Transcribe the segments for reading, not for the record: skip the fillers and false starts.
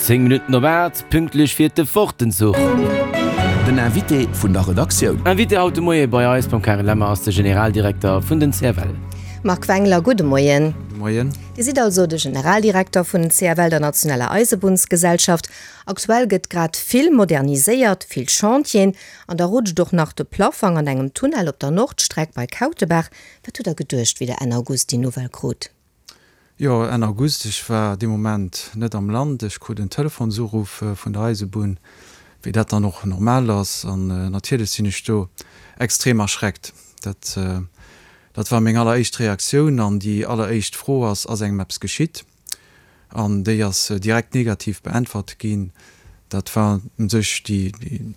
10 Minutten op 8, pünktlech fiert de Fortenzuch. Den Invité vun der Redaktioun. Invité haut de Moie bei eis beim Karen Lemmer ass de Generaldirekter vun den CFL. Marc Wengler, gudde Moien. Gudde Moien. Dir sidd also de Generaldirekter vun den CFL, der nationaler Eisebunnsgesellschaft. Aktuell gëtt grad vill moderniséiert, vill Chantieren, an da rutscht och nach de Plaffang an engem Tunnel op der Nordstreck bei Kautebaach. Wat hutt Der geduecht, wéi Der Enn August déi Nouvelle krut? Jo, Enn August, ech war dee Moment net am Land. Ech krut en Telefonsuruff vun der Eisebunn, wéi dat dann och normal ass. An natierlech sinn ech do extrem erschreckt. Dat, dat war meng alleréischt Reaktioun. An déi alleréischt Fro ass, Ass engem eppes geschitt? An déi ass direkt negativ beäntwert ginn. Dat war u sech déi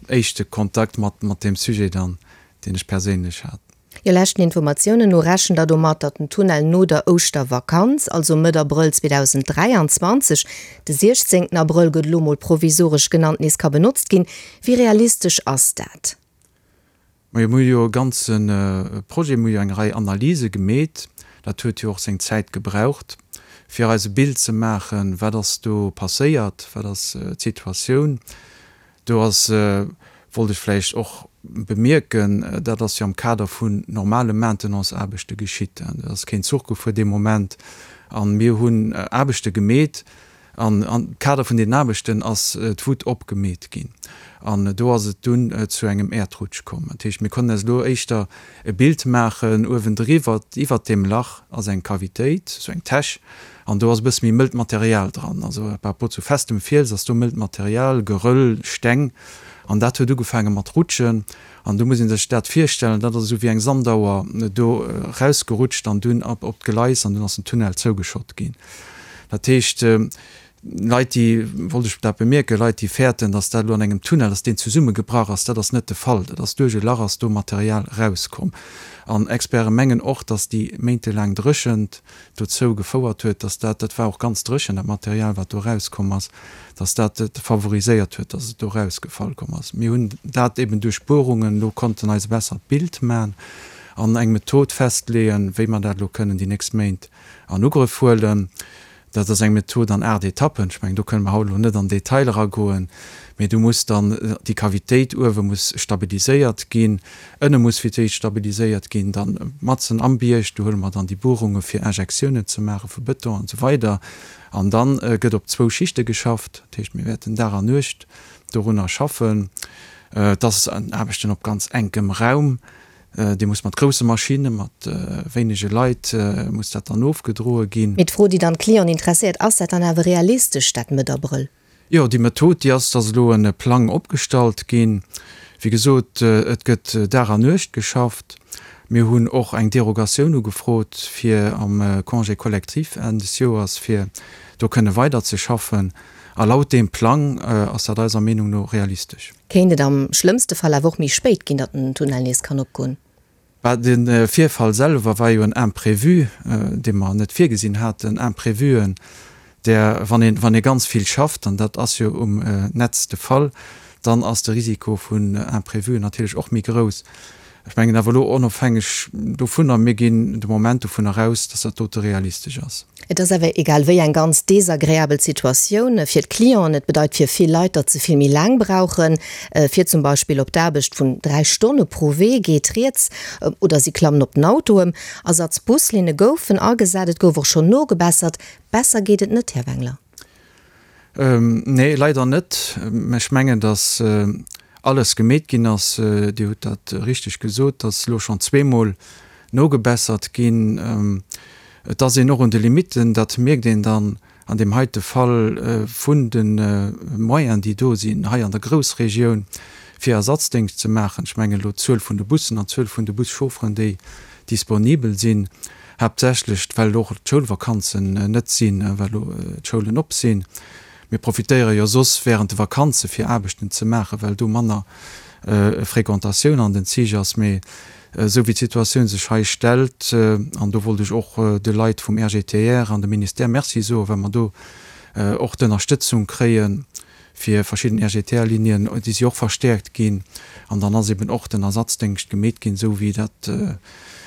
éischte Kontakt mat, mat deem Sujet dann, deen ech perséinlech hat. Jo, leschten Informatiounen no rechent der domat, datt den Tunnel no der Ouschtervakanz, also Mëtt Abrëll 2023, de 16 Abrëll gëtt elo mol provisoresch genannt, nees ka benotzt ginn. Wéi realistesch ass dat? Majo, mir hu jo e ganze Projet, mir hu jo eng Rei Analyse gemeet, dat huet jo och seng Zäit gebraucht, fir eis e Bild ze maachen, wat ass do passéiert, wat ass d'Situatioun. Do ass, wollt ech vläicht och bemierken, dat ass jo am Kader vun normale Maintenance-Aarbechte geschitt. Do ass keen Zuch gefuer dee Moment a mir hunn Aarbechte gemeet an am Kader vun deenen Aarbechten ass d'Wutt opgemeet ginn an do ass et dunn zu engem Äerdrutsch komm. Dat heescht, mir konnten eis elo éischter e Bild maachen, uewendriwwer, iwwert deem Lach ass eng Cavitéit, esou eng Täsch, An do ass e bësse méi mëllt Material dran. Also par rapport zu festem Fiels ass do mëllt Material, Geröll, Steng. An dat huet ugefaange mat rutschen. An do muss ee sech dat virstellen, dat ass esou wéi eng Sandauer do rausgerutscht an dunn op op d'Gleis an dunn ass den Tunnel zougeschott ginn. Dat heescht, Leit déi, wollt ech dat bemierken, Leit déi fäerten, datt dat elo an engem Tunnel, datt deen zesummegebrach ass, dat ass net de Fall. Dat ass duerch e Lach ass do Material rauskomm. An Experte mengen och, datt déi méintelaang Dréchent, dozou gefouert huet, dass dat, dat war och ganz dréchen, dat Material, wat do erauskomm ass, dass dat et favoriséiert huet, dass et do erausgefall komm ass. Mir hunn dat eben duerch Buerungen elo konnten eis e bessert Bild maachen an eng Method festleeën, wéi mer dat elo kënnen déi nächst Méint an Ugrëff huelen. Dat ass eng Method an 8 Etappen. Ech mengen, do kënne mer haut elo net an Detail eragoen, mee do muss dann déi Cavitéit uewe muss stabiliséiert ginn, ënne muss fir d'éischt stabiliséiert ginn, dann matzen am Bierg, do huele mer dann déi Buerunge fir Injektiounen ze maache vu Bëton an esou weider. An da gëtt op zwou Schichte geschafft. Dat heescht, mir wäerten Dag an Nuecht dorunner schaffen. Et ass Aarbechten op ganz enkem Raum. Dee muss mat grousse Maschinne, mat wéinege Leit muss dat dann ofgedroe ginn. Mee d'Fro, déi dann d'Clienten interesséiert, Ass dat dann awer realistesch, dat Mëtt Abrëll? Jo, déi Method, déi ass, dass elo e Plang opgestallt ginn. Wéi gesot, et gëtt Dag an Nuecht geschafft. Mir hunn och eng Derogatioun ugefrot, fir am Congé collectif Enn des Joers, fir do kënne weiderzeschaffen. A laut deem Plang ass dat eiser Meenung no realistesch. Kéint et am schlëmmste Fall awer och méi spéit ginn, datt den Tunnel nees kann opgoen? Bah, de Virfall selwer war jo en Imprévu, dee mer net virgesinn haten. Imprévuen, där, wann een, wann ee ganz vill schafft, an dat ass jo um Netz de Fall, dann ass de Risiko vun Imprévuen natierlech och méi grouss. Ech mengen awer elo onofhängeg dovunner, mir ginn de Moment dovunner aus, dass dat dote realistesch ass. Et ass awer egal wéi eng ganz desagreabel Situatioun fir d'Clienten. Et bedeit fir vill Leit, datt se vill méi laang brauchen, fir zum Beispill op d'Aarbecht. Vun 3 Stonne pro Wee geet rieds, oder si klammen op den Auto ëm. Ersatzbuslinne goufen agesat, et gouf och schonn nogebessert. Besser geet et net, Här Wengler? Nee, leider net. Ech mengen, datt alles gemeet ginn ass. Dir hutt dat richteg gesot, datt elo schonn zweemol nogebessert ginn. Et ass een och un de Limitten, dat mierkt een dann an deem heite Fall vun de Moyenen, déi do sinn hei an der Groussregioun, fir Ersatzdéngscht ze maachen. Ech mengen elo d'Zuel vun de Bussen an d'Zuel vun de Buschaufferen, déi disponibel sinn. Haaptsächlech well och d'Schoulvakanzen net sinn, well elo d'Schoulen op sinn. Mir profitéiere jo soss während de Vakanze fir Aarbechten ze maachen, well do manner Fréquentatioun an den Zich ass. Mee esou wéi d'Situatioun sech hei stellt, an do wollt ech och de Leit vum RGTR an dem Ministère Merci soen, well mer do och d'Ënnerstëtzung kréien, fir verschidden RGTR-Linien, déi si och verstäerkt ginn, an dann ass eben och den Ersatzdéngscht gemeet ginn, esou wéi dat,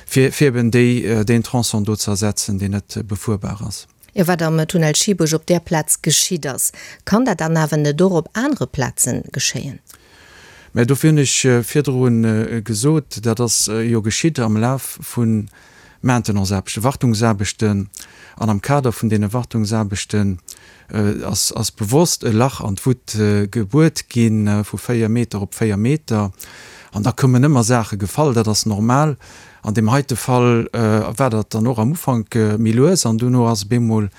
fir, fir eben déi, deen Tronçon do ze ersetzen, deen net befuerbar ass. Jo, wat am Tunnel Schiebuerg op där Plaz geschitt ass, kann dat dann awer net och op anere Plaze geschéien? Mä dofir hunn ech virdru gesot, dat ass jo geschitt am Laf vu Maintenanceaarbechten, Wartungsaarbechten. An am Kader vun deene Wartungsaarbechten ass bewosst e Lach an d'Wutt gebuert gi vu 4 Meter op 4 Meter. An da kommen ëmmer Saache gefall, dat ass normal. An deem heite Fall war dat dann och am Ufank méi lues an duerno ass op eemol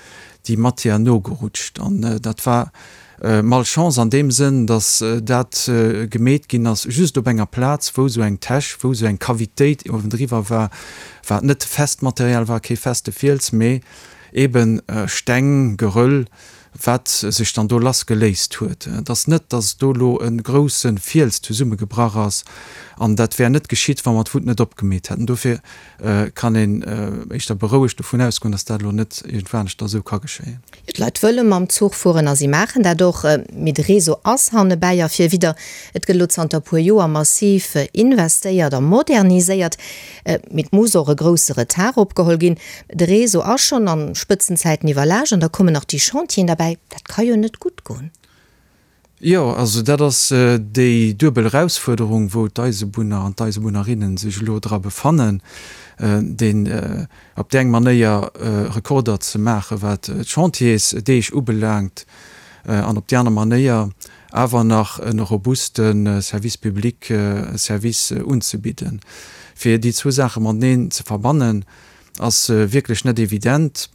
déi Matière nogerutscht. An dat war Malchance an deem Sënn, datt dat gemeet ginn ass just op enger Plaz, wou esou eng Täsch, wou esou eng Cavitéit uewendriwwer war, wat net fest Material war, kee feste Fiels, mee eeben Steng, Geröll, wat sech dann do lass geléist huet. Et ass net, datt do elo e grousse Fiels zesummegebrach ass, an dat wär net geschitt, wa mer d'Wutt net opgemeet hätten. Dofir kann een éischter berouegt dovun ausgoen, datt dat elo net iergendwaneschter esou ka geschéien. D'Leit wëlle mam Zuch fueren a si maachen dat och, mee de Réseau ass hannebäi a virwidder. Et gëtt elo zanter e puer Joer massiv investéiert a moderniséiert, mee et muss och e grousse Retard opgeholl ginn. De Réseau ass schonn a Spëtzenzäiten iwwerlaascht an da kommen nach déi Chantieren derbäi. Dat ka jo net gutt goen. Jo, also dat ass déi duebel Erausfuerderung, wou d'Eisebunner an d'Eisebunnerinnen sech elo dra befannen, deen op déi eng Manéier Rekorder ze maachen, wat d'Chantiersdeeg ubelaangt, an op déi aner Manéier awer nach e robuste Service public, Service unzebidden. Fir déi zwou Saache mateneen ze verbannen, Ass wierklech net evident.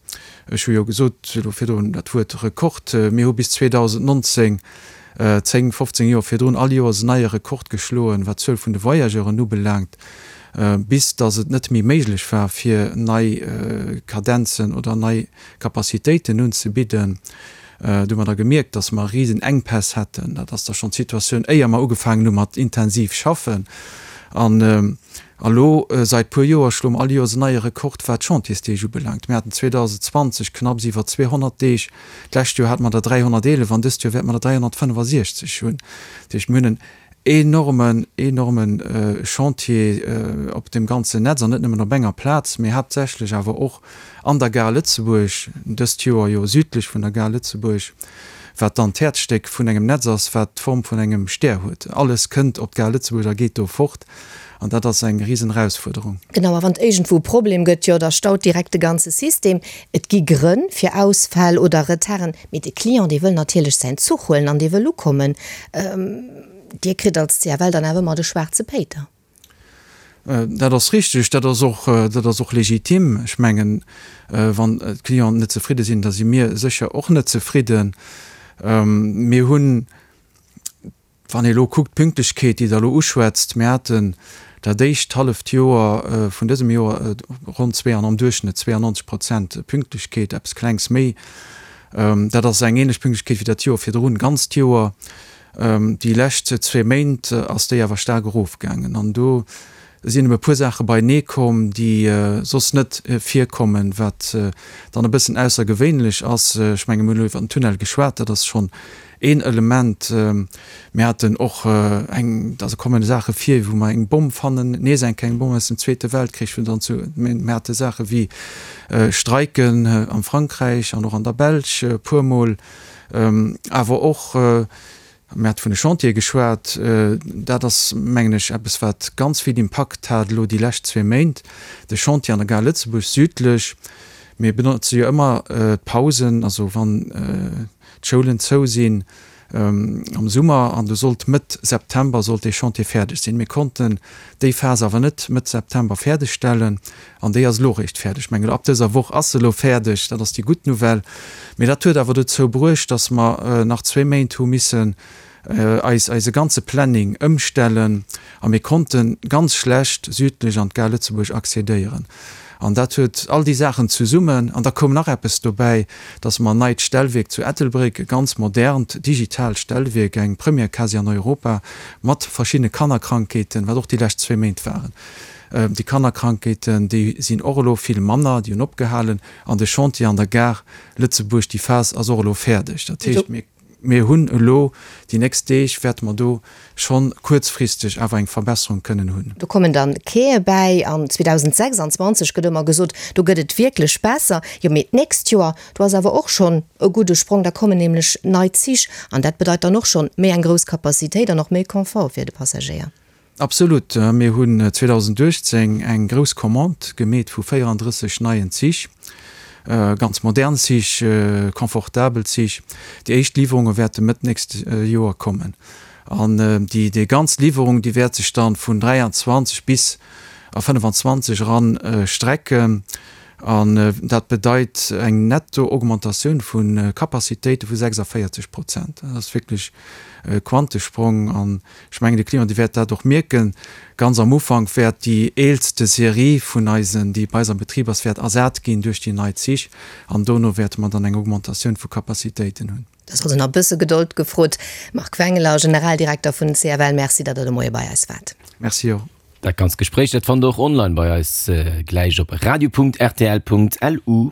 Ech hu jo gesot elo virdrun dat Wuert Rekord. Mir hu bis 2019, 10, 15 Joer virdrun, all Joers en neie Rekord geschloen, wat d'Zuel vun de Voyageuren ubelaangt, bis datt et net méi méiglech war, fir nei Kadenzen oder nei Capacitéiten unzebidden. Do hu mer da gemierkt, datt mer risen Enkpäss hätten. Dat ass da schonn d'Situatioun, éier mer ugefaangen hu mat intensiv schaffen. An elo sait puer Joer schloe mer all Joers en neie Rekord, wat d'Chantiersdeeg ubelaangt. Mir haten 2020 knapps iwwer 200 Deeg, d'lescht Joer hate mer der 311 an dëst Joer wäerte mer der 365 hunn. Dat heescht, mir hunn en enormen, enorme Chantier op deem ganzen Netz an net nëmmen op enger Plaz, mee haaptsächlech awer och an der Gare Lëtzebuerg, dëst Joer jo südlech vun der Gare Lëtzebuerg, wat dann d'Häerzstéck vun engem Netz ass, wat d'Form vun engem Stär huet. Alles kënnt op d'Gare Lëtzebuerg a geet do fort an dat ass eng risen Erausfuerderung. Genau, a wann et iergendwou e Problem gëtt, jo da staut direkt de ganze System. Et gi Grënn fir Ausfäll oder Retarden, mee de Client, dee wëll natierlech säin Zuch huelen an dee wëll ukommen. Dir kritt als CFL dann awer ëmmer de schwaarze Péiter. Dat ass richteg, dat ass och, dat ass och legitim. Ech mengen, wann d'Clienten net zefridde sinn, da si mir sécher och net zefridden. Mir hunn, wann ee elo kuckt, d'Pünktlechkeet, déi Der elo uschwätzt, mir haten dat éischt halleft Joer vun dësem Joer ronn zwee an am Duerchschnëtt 92 Prozent Pünktlechkeet, eppes Klengs méi. Dat ass eng ähnlech Pünktlechkeet wéi dat Joer virdrun, ganzt Joer. Déi lescht zwee Méint ass déi awer staark erofgaangen an do sinn ebe puer Saache beienee komm, déi soss net virkommen, wat dann e bëssen aussergewéinlech ass. Ech menge mir hunn elo iwwer den Tunnel geschwat, dat ass schonn een Element. Mir haten och eng, also kommen Saache vir, wou mer eng Bomm fannen, nees eng kleng Bomm aus dem Zweete Weltkrich, wou dann zu, mir hate Saache wéi Streiken am Frankräich an och an der Belsch e puermol, Awer och, mir hate vun de Chantiere geschwat, dat ass, mengen ech, eppes, wat ganz vill Impakt hat elo déi lescht zwee Méint, de Chantier an der Gare Lëtzebuerg südlech. Mir benotze jo ëmmer d'Pausen, also wann d'Schoulen zou sinn am Summer, an do sollt Mëtt September sollt dee Chantier fäerdeg sinn. Mir konnten déi Phas awer net Mëtt September fäerdegstellen. An déi ass elo eréischt fäerdeg. Ech mengen, ab dëser Woch ass se elo fäerdeg. Dat ass déi gutt Nouvelle. Mee dat huet awer dozou bruecht, dass mer nach zwee Méint hu missen eis eise ganze Planning ëmstellen a mir konnte ganz schlecht südlech an d'Gare Lëtzebuerg accédéieren. An dat huet all déi Saachen zesummen. An da koum nach eppes dobäi, dass mer en neit Stellwierk zu Ettelbréck, e ganz modernt digitaalt Stellwierk, eng Première quasi an Europa, mat verschiddene Kannerkrankheeten, wat och déi lescht zwee Méint waren, Déi Kannerkrankheeten, déi sinn och elo vill manner, déi hunn opgehalen. An de Chantier an der Gare Lëtzebuerg, déi Phas ass och elo fäerdeg. Dat heescht, mir. Mir hunn elo déi nächst Deeg wäerte mer do schonn kuerzfristeg awer eng Verbesserung kënnen hunn. Do kommen dann Quaie bäi an 2026 gëtt ëmmer gesot, do gëtt et wierklech besser. Jo, mee d'nächst Joer, do ass awer och schonn e gudde Sprong, da kommen nämlech nei Zich an dat bedeit dann och schonn méi eng grouss Capacitéit an och méi Confort fir de Passagéier. Absolut. Mir hunn 2018 eng grouss Commande gemeet vu 34 neien Zich, ganz modern Zich, confortabel Zich. Déi éischt Liwwerunge wäerte Mëtt nächst Joer kommen. An déi déi ganz Liwwerung, déi wäert sech dann vun 23 bis a 25 eran strecken. An dat bedeit eng netto Augmentatioun vu Capacitéite vu 46 Prozent. Dat ass wierklech e Quantesprong. An ech mengen, de Client, dee wäert dat och mierken. Ganz am Ufank wäert déi eelste Serie vun eisen, déi bei eis am Betrib ass, wäert ersat ginn duerch déi nei Zich. An dono wäerte mer dann eng Augmentatioun vu Capacitéiten hunn. Et ass also nach e bësse Gedold gefrot. Marc Wengeler, Generaldirekter vun CFL, Merci, datt Der de Moie bei eis waart. Merci och. Dat ganzt Gespréich, dat fannt der och online bei eis gläich op radio.rtl.lu.